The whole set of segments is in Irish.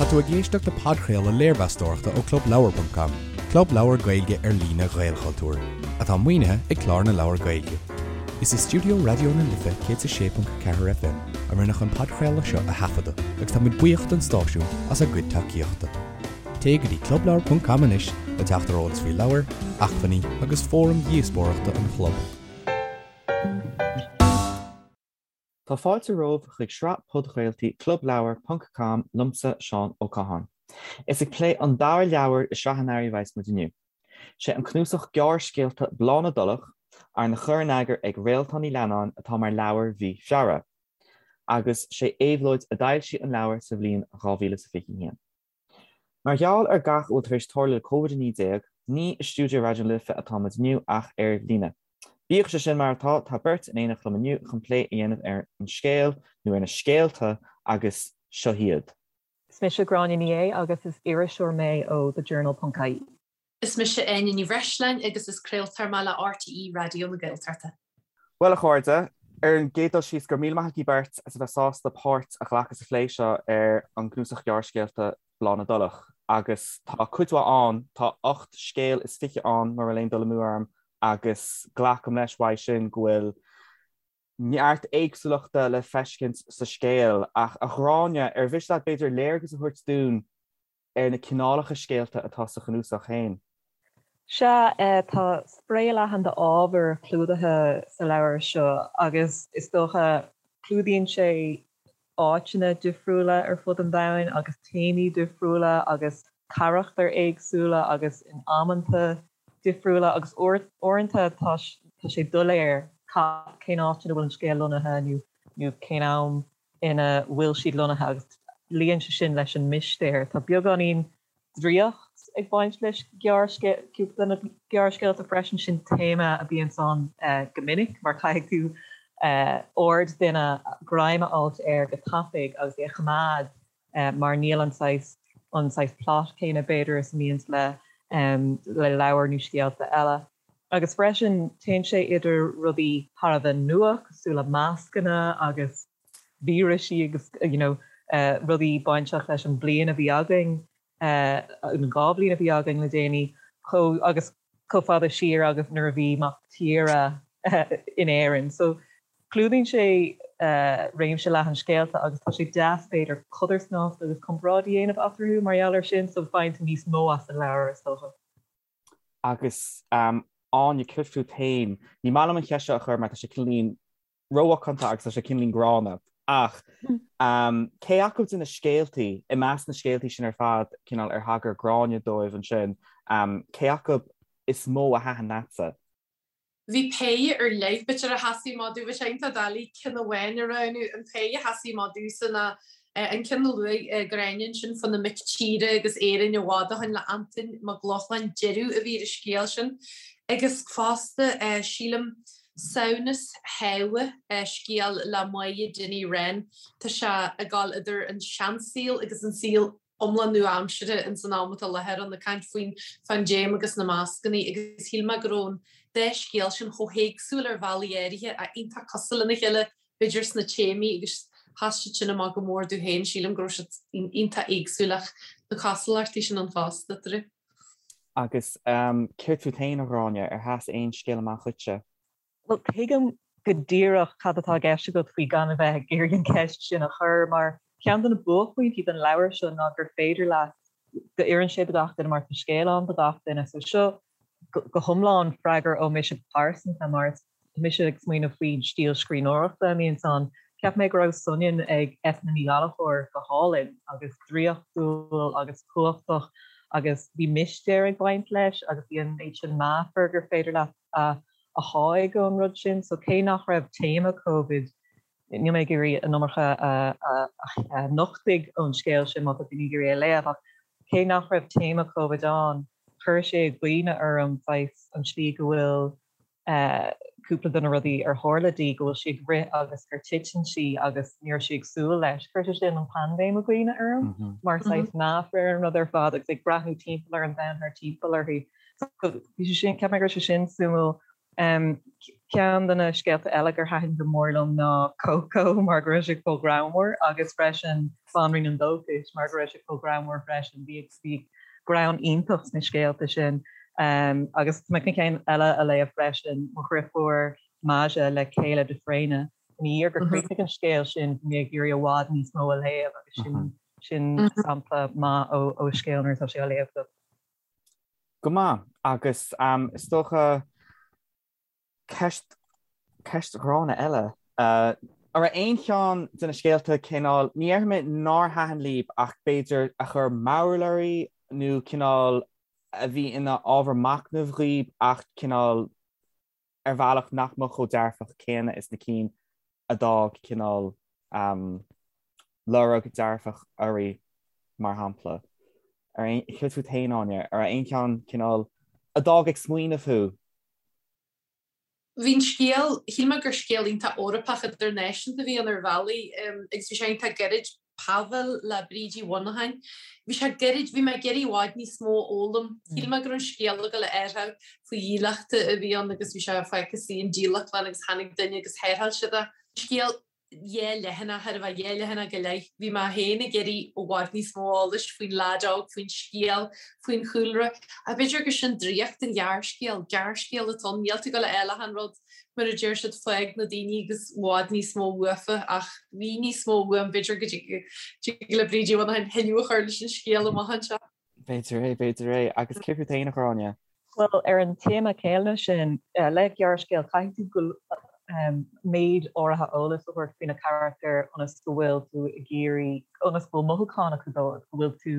tú ag éisteacht le podchraoladh léirmheastóireachta ó ClubLeabhar.com, club leabhar Gaeilge ar líne Ghaelchultúir, atá maoinithe ag Clár na Leabhar Gaeilge. Is i stiúideo Raidió na Life 106.4 FM a rinneadh an podchraoladh seo a thaifeadadh agus tá muid buíoch don stáisiún as a gcuid tacaíochta. Téigh go dtí clubleabhar.com anois le teacht ar eolas faoi leabhair, acmhainní agus fóraim dhíospóireachta an chlub. Tá fáilte romhaibh chuig sraith podchraoltaí Clubleabhar ponc com liomsa Seán Ó Catháin. Is ag plé an dara leabhar i sraith an earraigh a bheas muid inniu. Sé an cnuasach gearrscéalta Bláth na dTulach, arna chur in eagar ag Réaltán Ní Leannáin atá mar leabhar mhí Feabhra. Agus sé Éabhlóid a d'fhoilsigh an leabhar sa bhliain 2021. Mar gheall ar gach a bhfuil tar éis tarlú le Covid-19, ní i stiúideo Raidió na Life atá muid inniu ach ar líne. Bíodh sé sin mar atá, tá beirt in éineacht liom inniu chun plé a dhéanamh ar an scéal, nó ar na scéalta, agus seo hiad. Is mise Gráinne Ní Aodha agus is iriseoir mé ó The Journal ponc ie. Is mise Áine Ní Bhreisleáin agus is craoltóir mé le RTÉ Raidió na Gaeltachta. Bhuel, a chairde, ar an gcéad dul síos, go raibh míle maith agaibh beirt as a bheith sásta páirt a ghlacadh sa phlé seo ar an gcnuasach gearrscéalta Bláth na dTulach. Agus tá cuid mhaith ann, tá 8 scéal is 20 ann, mura bhfuil aon dul amú orm, agus glacaim leis uaidh sin go bhfuil neart éagsúlachta le feiscint sa scéal. Ach, a Ghráinne, ar mhiste leat b'fhéidir léargas a thabhairt dúinn ar na cineálacha scéalta atá sa chnuasach féin. Sea, tá spré leathan d'ábhar clúdaithe sa leabhar seo agus is dócha clúdaíonn sé áiteanna difriúla ar fud an domhain agus téamaí difriúla agus carachtair éagsúla agus in amanta difriúla agus uaireanta tá sé doiléir cén áit ina bhfuil an scéal lonnaithe nó cén am ina bhfuil siad lonnaithe agus luíonn sé sin leis an mistéir. Tá beagáinín draíocht ag baint leis cúpla de na gearrscéalta freisin, sin téama a bhíonns ann go minic mar caithfidh tú aird duine greim a fháilt air go tapaidh agus é a choimeád mar níl an saghas an saghas plot céanna b'fhéidir is a mbíonns le le leabhair nó scéalta eile. Agus freisin téann sé idir rudaí thar a bheith nua cosúil le mascanna agus vírisí agus you know rudaí bainteach leis an bliain a bhí againn, an dá bhliain a bhí againn le déanaí, chomh agus chomh fada siar agus nuair a bhí Mac Tíre in Éirinn. So clúdaíonn sé réimse leathan scéalta agus tá sé deas b'fhéidir codarsnacht agus comparáid a dhéanamh eatarthu mar gheall air sin so faigheann tú níos mó as an leabhar is dócha. Agus Áine, céard fút féin? Ní maith liom an cheist seo a chur mar tá sé cineáilín rómhacánta agus tá sé cineáilín gránna. Ach cé acu de na scéaltaí, i measc na scéaltaí sin ar fad, cineál ar thagair Gráinne dóibh ansin, cé acu is mó a thaitin leatsa? Bhí péire ar leith, b'fhéidir, a sheasaigh amach domh. Bhí sé iontach doiligh ceann amháin a roghnú. An péire a sheasaigh amach domhsa ná an ceann a luaigh Gráinne ansin fá na mic tíre agus Éirinn i bhfad ó shin le Antain Mac Lochlainn, Deireadh a bhí ar an scéal sin. Agus fosta, sílim, Samhnas Shábha, scéal le Máire Dinny Wren. Tá sé ag dul idir an seansaol agus an saol iomlán nua-aimseartha ins an am atá i láthair ann, ag caint faoin phaindéim agus na mascannaí agus shíl mé go raibh an dá scéal sin chomh héagsúil ar bhealaí áirithe ach iontach cosúil lena chéile b'fhéidir sna téamaí agus sheas siad sin amach go mór domh féin, sílim go raibh siad iontach éagsúil ach na cosúlachtaí sin ann fosta eatarthu. Agus céard fút féin, a Ghráinne, ar sheas aon scéal amach dhuitse? Bhuel, tuigim go díreach cad atá i gceist agat faoi gan a bheith ag iarraidh an cheist sin a chur, mar ceann de na buaicphointí den leabhar seo ná gur féidir leat, go oireann sé do gach duine mar tá scéal ann do gach duine. So seo go hiomlán freagra ó mise go pearsanta mar is tá mise ag smaoineamh faoin stíl scríbhneoireachta a mbíonns ann. Cheap mé go raibh Soineann ag Eithne Ní Ghallchóir go hálainn agus draíochtúil agus cumhachtach agus bhí mistéir ag baint leis agus bhí an méid sin meafar gur féidir leat a a sháigh ón rud sin. So cé nach raibh téama Covid, níl mé ag iarraidh an iomarca a nochtadh ón scéal sin má tá daoine ag iarraidh é a léamh, ach cé nach raibh téama Covid ann, chuir sé i gcuimhne orm saghas an tslí go bhfuil cúpla de na rudaí ar tharla di, go bhfuil sí ag rith agus gur titeann sí agus ní raibh sí ag súil leis. Chuir sé sin an paindéim i gcuimhne orm mar saghas meafar ar an rud ar fad agus ag breathnú timpeall ar an domhan thart timpeall uirthi. So bhí sé sin, cheap mé go raibh sé sin suimiúil. Ceann de na scéalta eile gur thaitin go mór liom ná Coco mar go raibh sé chomh greannmhar agus freisin Banríon an Dóchais mar go raibh sé chomh greannmhar freisin. Bhí bhí greann iontach sna scéalta sin. Agus tá mé chun ceann eile a léamh freisin, Mo Dhriofúr Maja le Kayla de Fréine. Ina dhiaidh gur chríochnaigh an scéal sin bhí mé ag iarraidh i bhfad níos mó a léamh agus sin sin sampla maith ó scéal nuair atá sé á léamh agat. Go maith, agus is dócha ceist, ceist ghránna eile. An raibh aon cheann de na scéalta cineál, ní déarfaidh mé nár thaitin libh ach b'fhéidir a chuir mearbhall oraibh nó cineál a bhí ina ábhar machnaimh dhaoibh ach cineál ar bhealach nach mbeadh chomh dearfach céanna is na cinn a d'fhág cineál lorg dearfach oraibh, mar shampla. Céard fút féin, Áine? An raibh aon cheann cineál a d'fhág ag smaoineamh thú? Bhí an scéal, shíl mé gur scéal iontach Eorpach idirnáisiúnta a bhí ann ar bhealaí agus bhí sé iontach gairid. Pavel le Bríd Uí Mhonacháin. Bhí sé gairid, bhí mé ag iarraidh i bhfad níos mó a fhoghlaim. Shíl mé go raibh an scéal ag dul a athrú faoi dhílleachta a bhí ann agus bhí sé fágtha sa dílleachtlann agus tháinig duine agus tharrtháil siad é. Scéal dhá leathanach, chóir a bheith dhá leathanach go leith. Bhí mé féin ag iarraidh i bhfad níos mó eolais faoin leaid óg, faoin scéal, faoin chúlra. Ach b'fhéidir gur sin draíocht an ghearrscéil, gearrscéal atá ann, níl tú ag dul a fháil achan rud. Mar a deir siad, fág na daoine agus i bhfad níos mó uafa, ach bhí níos mó uaim, b'fhéidir go dtig le Bríd Uí Mhonacháin tuilleadh a chur leis an scéal amach anseo. B'fhéidir é, b'fhéidir é. Agus céard fút féin, a Ghráinne? Bhuel, ar an téama céanna sin, le gearrscéal, caithfidh tú méid áirithe eolais a thabhairt faoi na carachtair ionas go bhfuil tú ag iarraidh, ionas go bhfuil mothúcháin acu dóibh, go bhfuil tú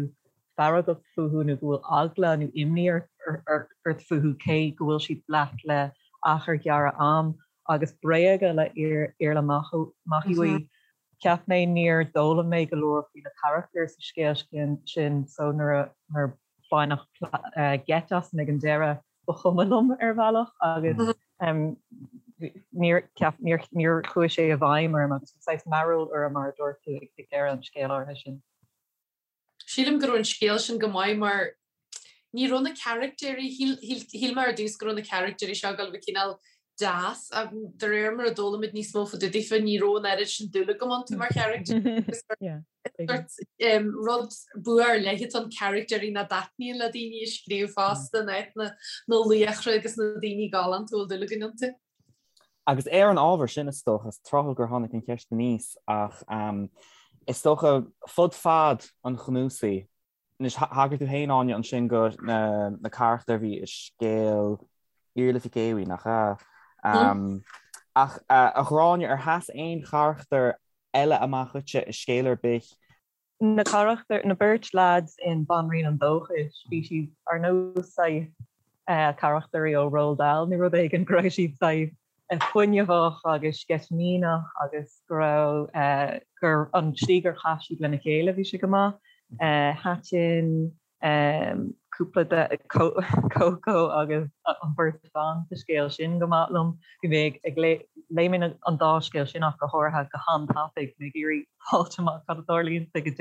feargach fúthu nó go bhfuil eagla nó imní ort fúthu cé go bhfuil siad leat le achar gearr am agus Bréaga le Iarla Mac Aodha. Cheap mé níor d'fhoghlaim mé go leor faoi na carachtair sa scéal sin so nuair a baineadh geit asam ag an deireadh ba chuma liom ar bhealach agus níor níor chuaigh sé i bhfeidhm orm agus bhí saghas mearbhall orm mar a dúirt tú ag deireadh an scéil áirithe sin. Sílim go raibh an scéal sin go maith mar ní raibh na caractéirí, shíl mé ar dtús go raibh na caractéirí seo ag dul a bheith cineál deas ach de réir mar a d'fhoghlaim muid níos mó fá dtaobh daofa ní raibh an oiread sin dúil agam iontu mar charactéirí. Rud bua ar leith atá ann caractéirí nach dtaitníonn le daoine a scríobh fosta in áit na laochra agus na daoine galánta a bhfuil dúil againn iontu. Agus ar an ábhar sin, is dócha, is tráthúil gur tháinig an cheist aníos, ach is dócha, fud fad an chnuasaigh, anois, thagair tú féin, Áine, ansin do na carachtair a bhí i scéal Iarla Mhic Aodha, nach ea? Ach, a Ghráinne, ar sheas aon charachtar eile amach dhuitse i scéal ar bith? Na carachtair, na beirt leaids in Banríon an Dóchais, bhí siad ar nós saghas carachtairí ó Roald Dahl nó rud éigin, go raibh siad saghas fuinneamhach agus sceitimíneach agus go raibh, gur, an tslí gur chaith siad lena chéile, bhí sé go maith. Thaitin cúpla de Coco agus an bheirt bhan sa scéal sin go maith liom. Bhí mé ag léigh mé an dá scéal sin ach go háirithe go han-tapaidh, mé ag iarraidh fáilt amach cad a tharlaíonn ag an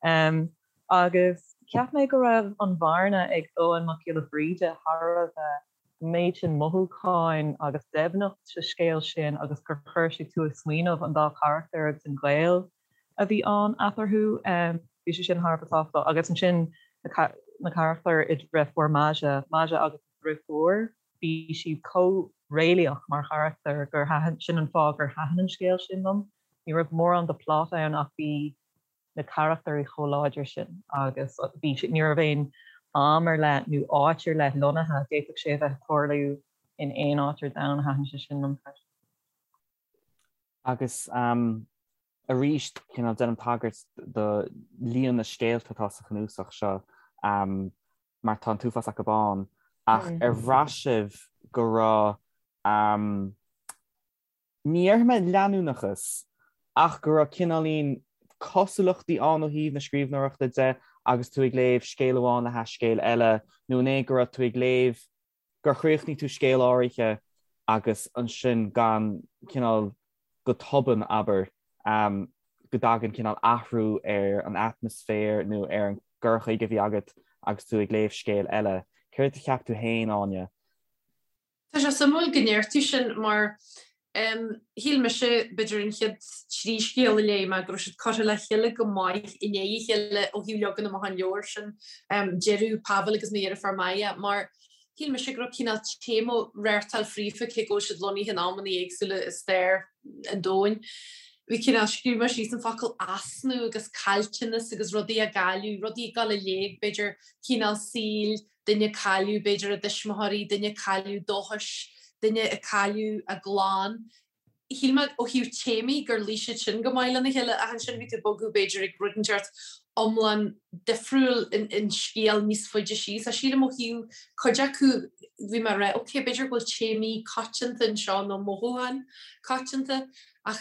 deireadh. Agus cheap mé go raibh an Bhearna ag Eoghan Mac Giolla Bhríde thar a bheith an méid sin mothúcháin agus doimhneacht sa scéal sin agus gur chuir sé tú ag smaoineamh an dá charachtar agus an gaol a bhí ann eatarthu. Bhí sé sin thar a bheith tábhachtach. Agus ansin na carachtair i Deirfiúr Maja, Maja agus a deirfiúr, bhí siad chomh réalaíoch mar charachtair gur thaitin, sin an fáth gur thaitin an scéal sin liom. Ní raibh mórán de plot ann ach bhí na carachtair chomh láidir sin agus bhí, ní raibh aon am ar leith nó áit ar leith lonnaithe, d'fhéadfadh sé a bheith ag tarlú in aon áit ar domhan, thaitin sé sin liom freisin. Agus arís, cineál déanaim tagairt do líon na scéalta atá sa chnuasach seo, mar tá an t-uafás acu ann, ach ar bhraith sibh go raibh, ní déarfaidh mé leanúnachas, ach go raibh cineáilín cosúlachtaí ann ó thaobh na scríbhneoireachta de agus tú ag léamh scéal amháin le hais scéal eile, nó an é go raibh tú ag léamh gur chríochnaigh tú scéal áirithe agus ansin gan cineál go tobann, abair, go dtagann cineál athrú ar an atmaisféar nó ar an gcur chuige a bhí agat agus tú ag léamh scéal eile. Céard a cheap tú féin, Áine? Tá sé suimiúil go ndeir tú sin mar shíl mise, b'fhéidir an chéad trí scéal a léigh mé, go raibh siad curtha le chéile go maith i ndiaidh a chéile ó thaobh leagan amach an leabhair sin, Deireadh, Pavel agus Mo Dheirfiúr Maya, mar shíl mise go raibh cineál téama reáchtáil fríofa cé go bhfuil siad lonnaithe in amanna éagsúla i stair an domhain. Bhí cineál, scríobh mé síos an focal easnamh agus caillteanas agus rudaí á gcailleadh, rudaí ag dul i léig, b'fhéidir cineál saoil, duine ag cailleadh b'fhéidir a dtuismitheoirí, duine ag cailleadh dóchais, duine ag cailleadh a gclann. Shíl mé ó thaobh téamaí gur luigh siad sin go maith lena chéile ach ansin bhí tú ag bogadh b'fhéidir ag rud inteacht iomlán difriúil in scéal níos faide síos. Ach sílim ó thaobh cuid acu bhí mé ag rá ok b'fhéidir go bhfuil téamaí coitianta anseo nó mothúcháin coitianta ach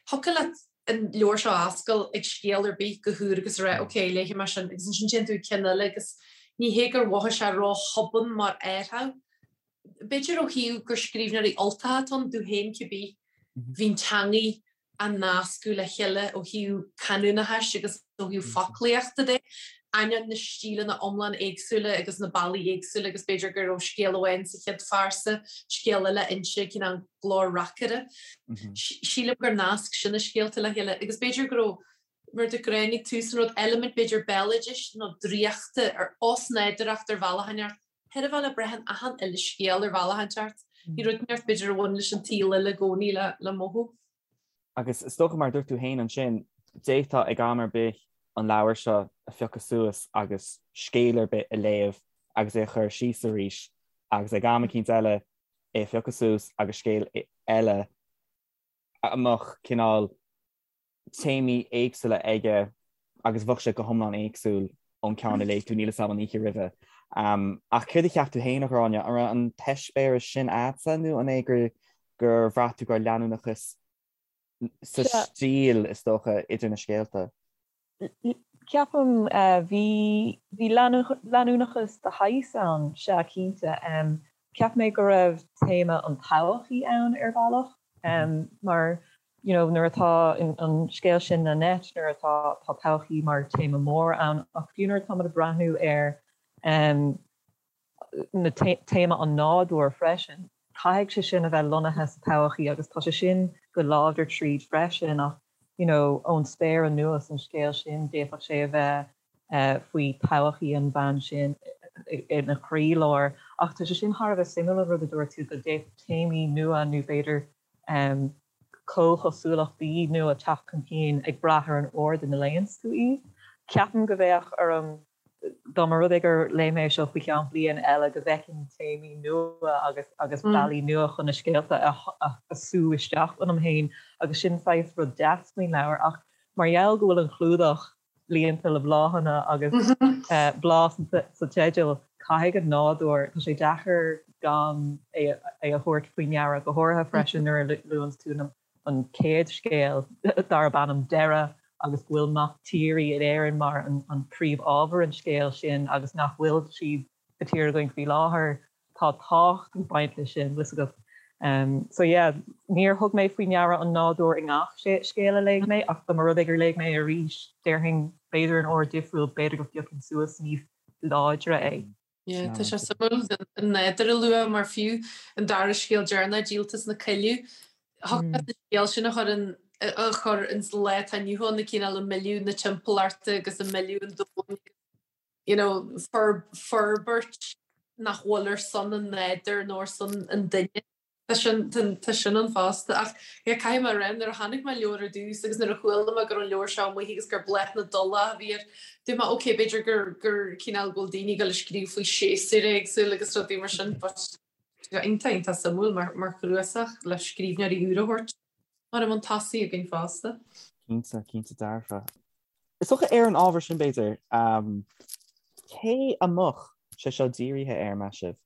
thiocfadh leat an leabhar seo a oscailt ag scéal ar bith go húr agus a rá ok, léifidh mé sin agus ansin téann tú ag ceann eile agus ní hé gur mhothaigh sé ró-thobann mar athrú. B'fhéidir ó thaobh gur scríbhneoirí Ultacha atá ann, domh féin cibé, bhí an teangaidh á nascadh le chéile ó thaobh canúnachais agus ó thaobh foclaíochta de, ainneoin na stíleanna iomlán éagsúla agus na bealaí éagsúla agus b'fhéidir go raibh scéal amháin sa chéad phearsa, scéal eile inse cineál glór reacaire. Sílim gur nasc sin na scéalta le chéile agus b'fhéidir go raibh, mar a dúirt Gráinne ag tús an rud, eilimint b'fhéidir béaloidis nó draíochta ar osnádúrthacht ar bhealach inteacht, chaill a bheith le brath in achan uile scéal ar bhealach inteacht. Bhí rud inteacht b'fhéidir a bhain leis an tsaol eile i gcónaí le mothú. Agus is dócha, mar a dúirt tú féin ansin, d'fhéadfá ag am ar bith an leabhar seo a phiocadh suas agus scéal ar bith a léamh agus é a chur síos arís agus ag am eicínt eile é a phiocadh suas agus scéal eile a mbeadh cineál téamaí éagsúla aige agus bheadh sé go hiomlán éagsúil ón ceann a léigh tú, níl 'fhios a'm, an oíche roimhe. Ach céard a cheap tú féin, a Ghráinne? An raibh an t-eispéireas sin a'dsa nó an é gur gur bhraith tú go raibh leanúnachas sa stíl, is dócha, idir na scéalta? Ceapaim, bhí, bhí leanúnachas de shaghas ann, sea, cinnte. Cheap mé go raibh téama an todhchaí ann ar bhealach, mar, you know, nuair atá an scéal sin Nanette, nuair atá, tá todhchaí mar téama mór ann, ach fiú nuair atáimid ag breathnú ar na téama an nádúir freisin, caithfidh sé sin a bheith lonnaithe sa todhchaí agus tá sé sin go láidir tríd freisin ach, you know, ón spéir anuas an scéal sin, d'fhéadfadh sé a bheith faoi todhchaí an bhean sin ina chroílár. Ach tá sé sin thar a bheith suimiúil an rud a dúirt tú go d'fhéadfadh téamaí nua nó b'fhéidir comhchosúlachtaí nua teacht chun cinn ag brath ar an ord ina léanns tú iad. Ceapaim go bheadh orm dá mba rud é gur léigh mé é seo faoi cheann bliain eile, go bhfeicfinn téamaí nua agus agus bealaí nua chun na scéalta a a sú isteach ionam féin agus sin saghas rud deas faoin leabhar. Ach mar gheall go bhfuil an clúdach líonta le bláthanna agus bláth sa teideal, caithfidh an nádúr, tá sé deacair gan é a thabhairt faoi ndeara, go háirithe freisin nuair a luanns tú na an chéad scéal darb ainm Deireadh agus go bhfuil mac tíre in Éirinn mar an príomhábhar an scéil sin agus nach bhfuil siad sa tír againn faoi láthair, tá tábhacht ag baint leis sin, bhfuil 'fhios agat. So yeah, níor thug mé faoi ndeara an nádúr i ngach scéal a léigh mé ach dá mba rud é gur léigh mé é arís, déarfainn b'fhéidir in ord difriúil, b'fhéidir go bpiocfainn suas níos láidre é. Yeah, tá sé suimiúil an nádúr a lua mar fiú an dara scéal deireanach, Díoltas na Coilleadh, thiocfadh leat an scéal sin a chur in a chur ins lá atá inniu ann, na cineál ag milleadh na timpeallachta agus ag milleadh an domhain you know, forbairt nach bhfuil ar son an nádúir nó ar son an duine. Tá sin, tá sin ann fosta. Ach yeah, caithfidh mé a rá, nuair a chonaic mé an leabhar ar dtús agus nuair a chuala mé go raibh an leabhar seo amuigh agus gur Bláth na dTulach a bhí air, dúirt mé, ok, b'fhéidir gur, gur cineál go bhfuil daoine ag dul ag scríobh faoi séasúir éagsúil agus rudaí mar sin, but tá sé iontach, iontach suimiúil mar, mar chnuasach le scríbhneoirí úra a thabhairt mar i mbun tosaigh againn fosta. Cinnte, cinnte dearfa. Is dócha ar an ábhar sin, b'fhéidir, cé a mbeadh sé seo dírithe air, meas sibh?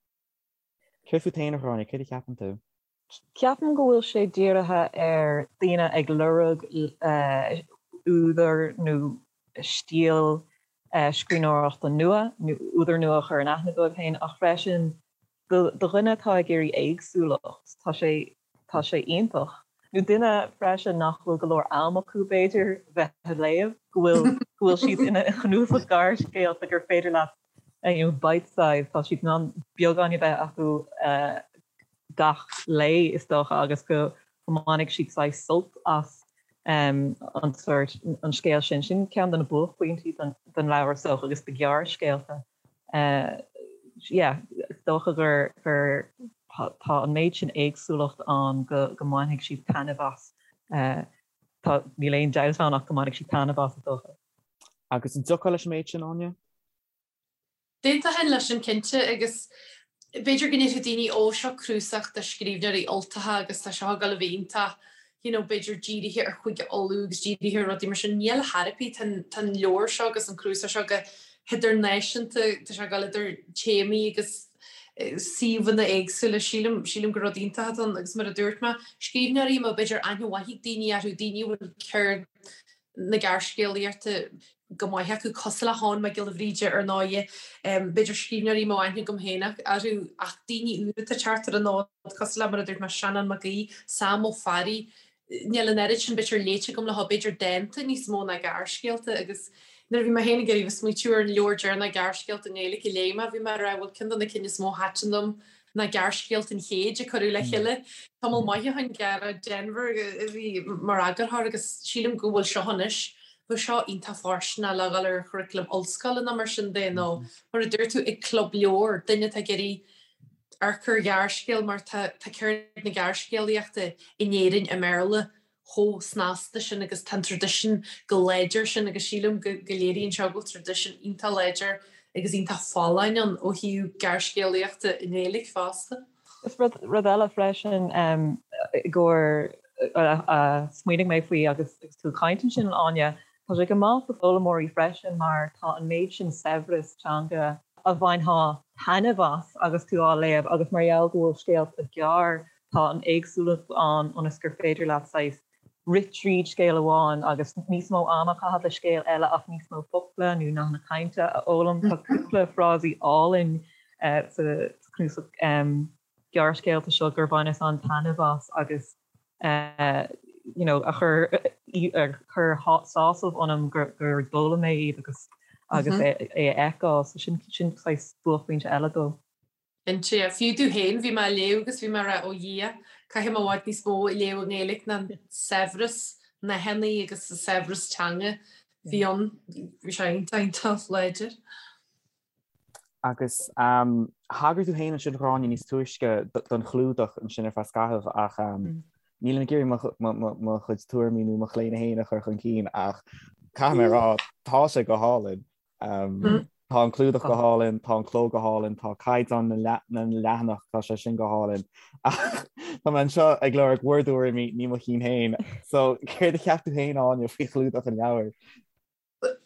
Céard fút féin, a Ghráinne, céard a cheapann tú? Ceapaim go bhfuil sé dírithe ar daoine ag lorg údar nó stíl scríbhneoireachta nua, nó údar nua a chur in aithne dóibh féin, ach freisin do dhuine atá ag iarraidh éagsúlacht, tá sé tá sé iontach. Nó duine freisin nach bhfuil go leor am acu, b'fhéidir, bheith ag léamh, go bhfuil go bhfuil siad ina chnuasach gearrscéalta gur féidir leat you know, bite size, tá siad in ann beagán a bheith acu. gach lae is dócha agus go mbainfidh siad saghas sult as an sórt, an scéal sin. Sin ceann de na buaicphointí den leabhar is dócha agus de ghearrscéalta. Yeah, is dócha gur gur tá an méid sin éagsúlacht ann go go mbainfidh siad taitneamh as. Tá, níl aon dabht ann ach go mbainfidh siad taitneamh as is dócha. Agus an dtiocfá leis an méid sin, Áine? D'aontóinn leis sin cinnte agus b'fhéidir go ndéarfadh daoine ó seo cnuasach de scríbhneoirí Ultacha agus tá seo ag dul a bheith iontach you know b'fhéidir dírithe ar Chúige Uladh agus dírithe ar rudaí mar sin. Níl ar chor ar bith, tá an leabhar seo agus an cnuasach seo go hidirnáisiúnta, tá sé ag dul idir téamaí agus suíomhanna éagsúla. Sílim, sílim gur rud iontach atá ann agus mar a dúirt mé, scríbhneoirí a mbeadh b'fhéidir aithne mhaith ag daoine orthu, daoine a bhfuil ceird na gearrscéalaíochta go maith acu, cosúil le hEoghan Mac Giolla Bhríde ar ndóighe, b'fhéidir scríbhneoirí a mbeadh aithne agam féin orthu ach daoine úra atá ag teacht ar an fhód, cosúil le, mar a dúirt mé, Seanán Mac Aoidh, Sam Ó Fearraigh, níl an oiread sin b'fhéidir léite agam leo, b'fhéidir dánta níos mó ná gearrscéalta agus nuair a bhí mé féin ag iarraidh bheith ag smaoitiú ar an leabhar deireanach gearrscéalta i nGaeilge a léigh mé, bhí mé ag rá bhuel ceann de na cinn is mó a thaitin liom ná Gearrscéalta an Chéid a cuireadh le chéile tamall maith ó shin, Gearóid Denvir a bhí mar eagarthóir agus sílim go bhfuil seo anois, bheadh seo iontach fóirsteanach le dhul ar churaclam ollscoile nó mar sin de nó mar a dúirt tú ag club leabhar, duine atá ag iarraidh amharc ar ghearrscéal mar tá ceird na gearrscéalaíochta in Éirinn i mBéarla chomh snasta sin agus tá an traidisiún chomh láidir sin agus sílim go léiríonn seo go bhfuil traidisiún iontach láidir agus iontach folláin ann ó thaobh gearrscéalaíochta i nGaeilge fosta. Is rud rud eile freisin i gcomhair a smaoinigh mé faoi agus tú ag caint ansin Áine, tá sé go maith do foghlaimeoirí freisin mar tá an méid sin saibhreas teanga a bhainfeá taitneamh as agus tú á léamh agus mar gheall go bhfuil scéalta gearr Tá an éagsúlacht ann ionas gur féidir leat saghas rith tríd scéal amháin agus níos mó ama a chaitheamh le scéal eile ach níos mó focla nó nathanna cainte a fhoghlaim. Tá cúpla frásaí álainn sa chnuasach gearrscéalta seo gur bhaineas an-taitneamh as agus you know a chuir a chuir sásamh ionam gur d'fhoghlaim mé iad agus agus é a fheiceáil. So sin sin saghas buaicphointe eile dó. Cinnte. Fiú domh féin, bhí mé á léamh agus bhí mé ag rá, ó Dhia, caithfidh mé i bhfad níos mó a léamh i nGaeilge ná an saibhreas nathanna agus an saibhreas teanga a bhí ann. Bhí sé iontach, iontach láidir. Agus thagair tú féin ansin, a Ghráinne, níos túisce don chlúdach ansin ar feadh scaithimh ach nílim ag iarraidh mo chuid tuairimí nó mo chlaonadh féin a chur chun cinn ach caithfidh mé a rá, tá sé go hálainn. Tá an clúdach go hálainn, tá an cló go hálainn, tá caighdeán na leathanach, tá sé sin go hálainn. Ach tá mé anseo ag lorg bhur dtuairimí, ní mo chinn féin. So, céard a cheap tú féin, Áine, faoi chlúdach an leabhair?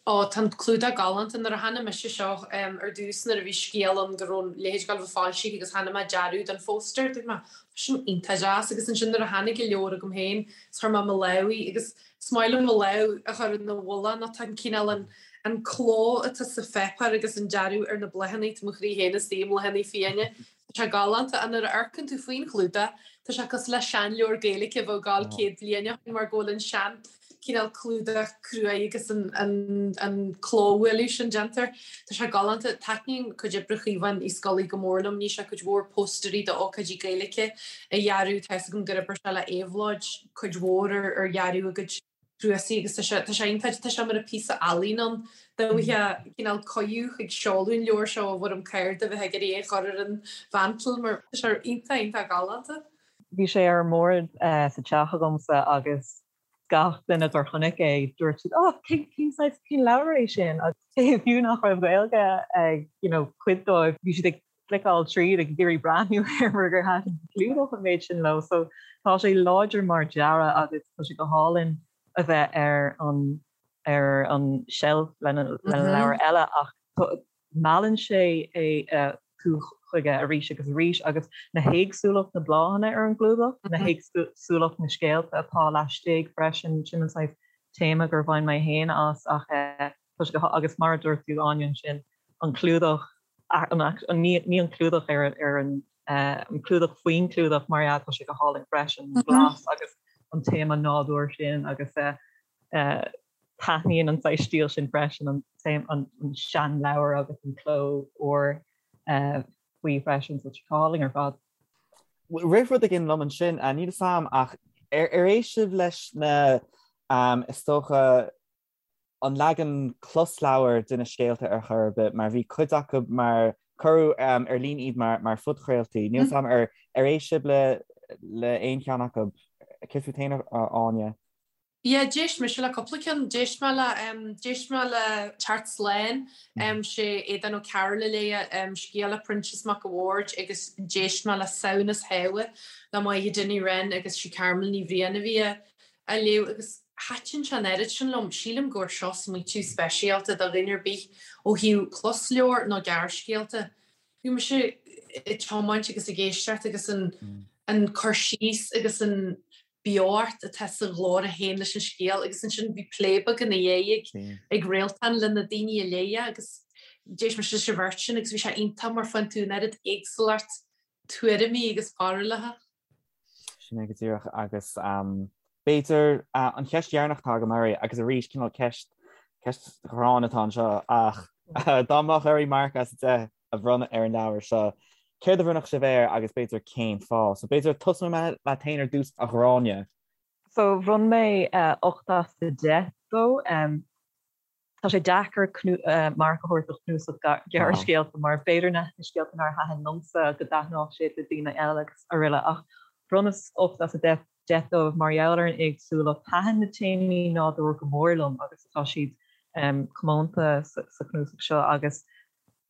Ó, tá an clúdach galánta. Nuair a chonaic mise seo ar dtús, nuair a bhí scéal ann go raibh a leithéid ag dul a bheith foilsithe agus chonaic mé dearadh don phóstaer, dúirt mé, tá sin iontach deas. Agus ansin nuair a tháinig an leabhar chugam féin, is chuir mé mo lámh í agus Is maith liom mo lámh a chur ina mhullach nó tá an cineál an an cló atá sa pháipéar agus an dearadh ar na bláthanna, tá mo chroí féin istigh i mbláthanna fiáine. Tá sé galánta ach nuair a amharcann tú faoin chlúdach tá sé cosúil le seanleabhar Gaeilge a bheadh ag gabháil 100 bliain ó shin mar go bhfuil an sean cineál clúdach cruaidh agus an an an clóbhualadh sin déanta air. Tá sé galánta. Taitníonn cuid oibre Chaomháin Uí Scolaí go mór liom. Ní sé cuid mhór póstairí d'ócáidí Gaeilge a dhearadh. Tá fhios agam gur oibir sé le Éabhlóid. cuid mhór ar dhearadh a gcuid cnuasaigh agus tá sé tá sé iontach, tá sé mar píosa ealaíne ann. Dá bhfaighfeá cineál cuireadh chuig seoladh an leabhair seo i bhfoirm cárta bheifeá ag iarraidh é a chur ar an mhantel mar tá sé iontach iontach galánta. Bhí sé ar an mbord sa teach agamsa agus gach duine gur chonaic é dúirt siad oh cén cén saghas cén leabhar é sin agus fiú nach raibh Gaeilge ag you know cuid dóibh bhí siad ag cliceáil tríd ag iarraidh breathnú air mar gur thaitin an clúdach an méid sin leo. So tá sé láidir mar dearadh agus tá sé go hálainn a bheith ar an ar an shelf lena lena leabhar eile ach meallann sé é tú chuige arís agus arís agus na héagsúlacht na bláthanna ar an gclúdach, na héagsúlacht na scéalta atá laistigh freisin, sin an saghas téama gur bhain mé féin as ach tá sé go agus mar a dúirt tú Áine ansin an clúdach ní an clúdach ar an an clúdach faoin clúdach mar ea tá sé go hálainn freisin, an glas agus an téama nádúir sin agus taitníonn an saghas stíl sin freisin, an seanleabhar agus an cló úr faoi freisin, so tá sé go hálainn ar fad. Rith rud éigin liom ansin, níl fhios a'm ach ar éist sibh leis na, is dócha, an leagan closleabhair de na scéalta ar chor ar bith mar bhí cuid acu mar cuireadh ar líne iad mar phodchraoltaí. Níl fhios a'm ar ar éist sibh le le aon cheann acu. Céard fút féin, a Áine? Yeah, d'éist mise le cúpla ceann. D'éist mé le, d'éist mé le Teacht Slán, sé Aodhán Ó Cearúil a léigh scéal le Proinsias Mac a' Bhaird agus d'éist mé le Samhnas Shábha le Máire Ní Wren agus sí Carmel Ní Bhriain a bhí á léamh agus thaitin sé an oiread sin liom. Sílim gur seo smaoitiú speisialta do dhuine ar bith ó thaobh closleabhar nó gearrscéalta. Bhí mise ag tiomáint agus ag éisteacht agus an cur síos agus an beocht atá sa ghlór a théann leis an scéal agus ansin bhí plé beag ina dhiaidh ag Réaltán le na daoine a léigh é agus d'éist mise leis an bheirt sin agus bhí sé iontach mar faigheann tú an oiread éagsúlacht tuairimí agus barúlacha. Sin é go díreach agus b'fhéidir an cheist dheireanach atá agam oraibh agus arís cineál ceist ceist ghránna atá anseo ach dá mbeadh oraibh marc as 10 a bhronnadh ar an leabhar seo, céard a bhronnfadh sibh air agus b'fhéidir cén fáth? So b'fhéidir tosóidh mé leat féin ar dtús a Ghráinne. So bhronn mé 8 as 10 dó. Tá sé deacair marc a thabhairt do chnuasach gearrscéalta mar b'fhéidir na scéalta nár thaitin liomsa go dtaitneodh siad le daoine eile agus araile ach bhronnas 8 as 10 dóibh mar gheall ar an éagsúlacht. Thaitin na téamaí nádúir go mór liom agus tá siad comónta sa chnuasach seo agus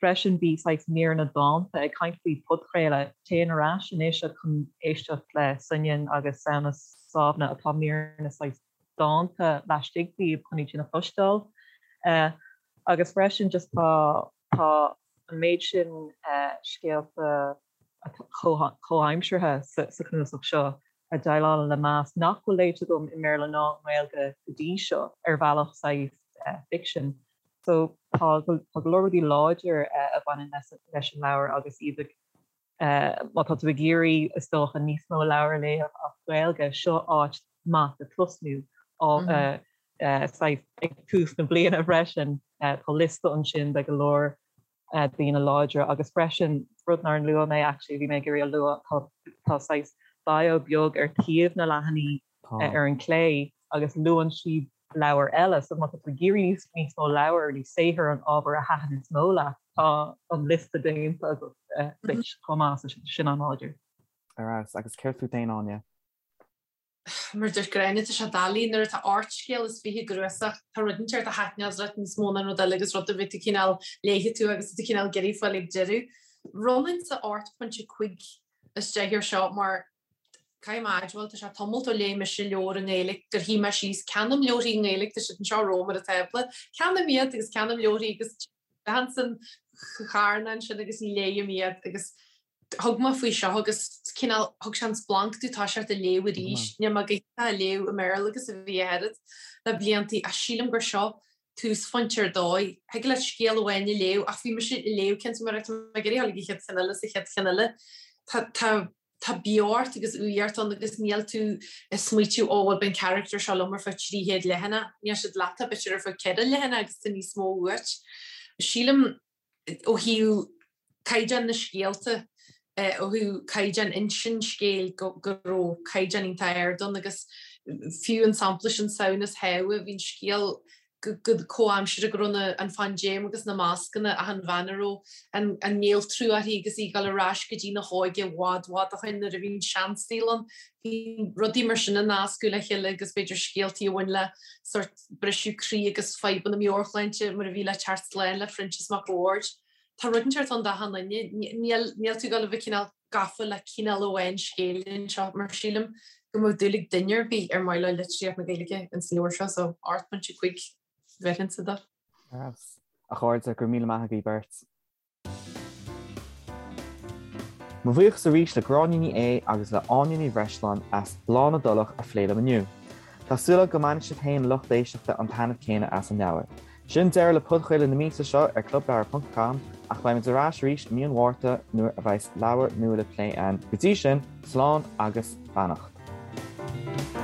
freisin bhí saghas míreanna dánta ag caint faoi podchraoladh. Téann ar ais anois chun éisteacht le Soineann agus Samhnas Sábhna atá míreanna saghas dánta laistigh díobh chun iad sin a chloisteáil. Agus freisin just tá tá an méid sin scéalta comhaimseartha sa chnuasach seo a dhéileálann le mbás nach bhfuil léite agam i mBéarla ná i nGaeilge go dtí seo ar bhealach saghas ficsin. So tá go leor rudaí láidir a bhaineann leis an leabhar agus iad ag Má tá tú ag iarraidh, is dócha, níos mó leabhar a léamh as Gaeilge, seo áit maith le tosnú. Saghas ag tús na bliana freisin, tá liosta ansin de go leor daoine láidre agus freisin, rud nár luaigh mé actually, bhí mé ag iarraidh a lua, tá saghas bio beag ar taobh na leathanaí ar an clé agus luann siad leabhair eile. So má tá tú ag iarraidh níos mó leabhar nó saothar an ábhar a thaitin is mó leat, tá an liosta déanta agat duit chomh maith, so sin an-láidir. Ar fheabhas. Agus céard fút féin, Áine? Mar a dúirt Gráinne, tá sé doiligh nuair atá 28 scéal i gcnuasach, tá rud inteacht a thaitneos leat níos mó ná an rud eile agus rud ar bith tú cineál léifidh tú agus tú cineál ag iarraidh fáil ag deireadh. Bhronnfainnse 8.5 as 10 air seo mar Caithfidh mé a admháil, tá sé tamalt ó léigh mise leabhar i nGaeilge gur shuigh mé síos, ceannaím leabharthaí i nGaeilge, tá siad anseo romham ar an tábla, ceannaím iad agus ceannaím leabharthaí agus téann san charn ansin agus ní léighim iad agus thug mé faoi seo agus cineál thug sé an splanc domh toiseacht a léamh arís. Níl mé go hiontach a léamh i mBéarla agus a bhí a oiread le bliantaí ach sílim gur seo túsphointe ar dóigh. Thig leat scéal amháin a léamh ach bhí mise ag léamh ceann mar tá mé ag iarraidh dul ag an chéad cheann eile is an chéad cheann eile. Tá tá tá beocht agus úireacht ann agus níl tú ag smaoitiú ó bhuel beidh an charachtar seo liom ar feadh 300 leathanach. Níl siad leat b'fhéidir ar feadh 4 leathanach agus tá níos mó uait. Sílim ó thaobh caighdeán na scéalta, ó thaobh caighdeán insint scéil go raibh caighdeán iontach ard ann agus fiú an sampla sin Samhnas Shábha, bhí an scéal go comhaimseartha go raibh an phaindéim agus na mascanna ach an bhean a raibh an néaltrú uirthi agus í ag dul ar ais go dtí na hóige i bhfad bhfad ó shin nuair a bhí an seansaol ann. Bhí rudaí mar sin a nascadh le chéile agus b'fhéidir scéaltaí a bhain le sórt briseadh croí agus fadhbanna meabhairshláinte mar a bhí le Teacht Slán le Proinsias Mac a' Bhaird. Tá rud inteacht ann d'achan duine. Níl tú ag dul a bheith cineál gafa le cineál amháin scéil anseo mar sílim go mbeadh dúil ag duine ar bith ar mhaith leo litríocht na Gaeilge ins an leabhar seo so 8.5 bheirfinnse dó. Ar fheabhas. A chairde, go raibh míle maith agaibh beirt. Mo bhuíochas arís le Gráinne Ní Aodha agus le Áine Ní Bhreisleáin as Bláth na dTulach a phlé liom inniu. Tá súil agam go mbainfidh sibh féin lucht éisteachta an taitneamh céanna as an leabhar. Sin deireadh le podchraoladh na míosa seo ar clubleabhar.com ach beimid ar ais arís i mí an Mhárta nuair a bheas leabhar nua le plé ann. Go dtí sin, slán agus beannacht.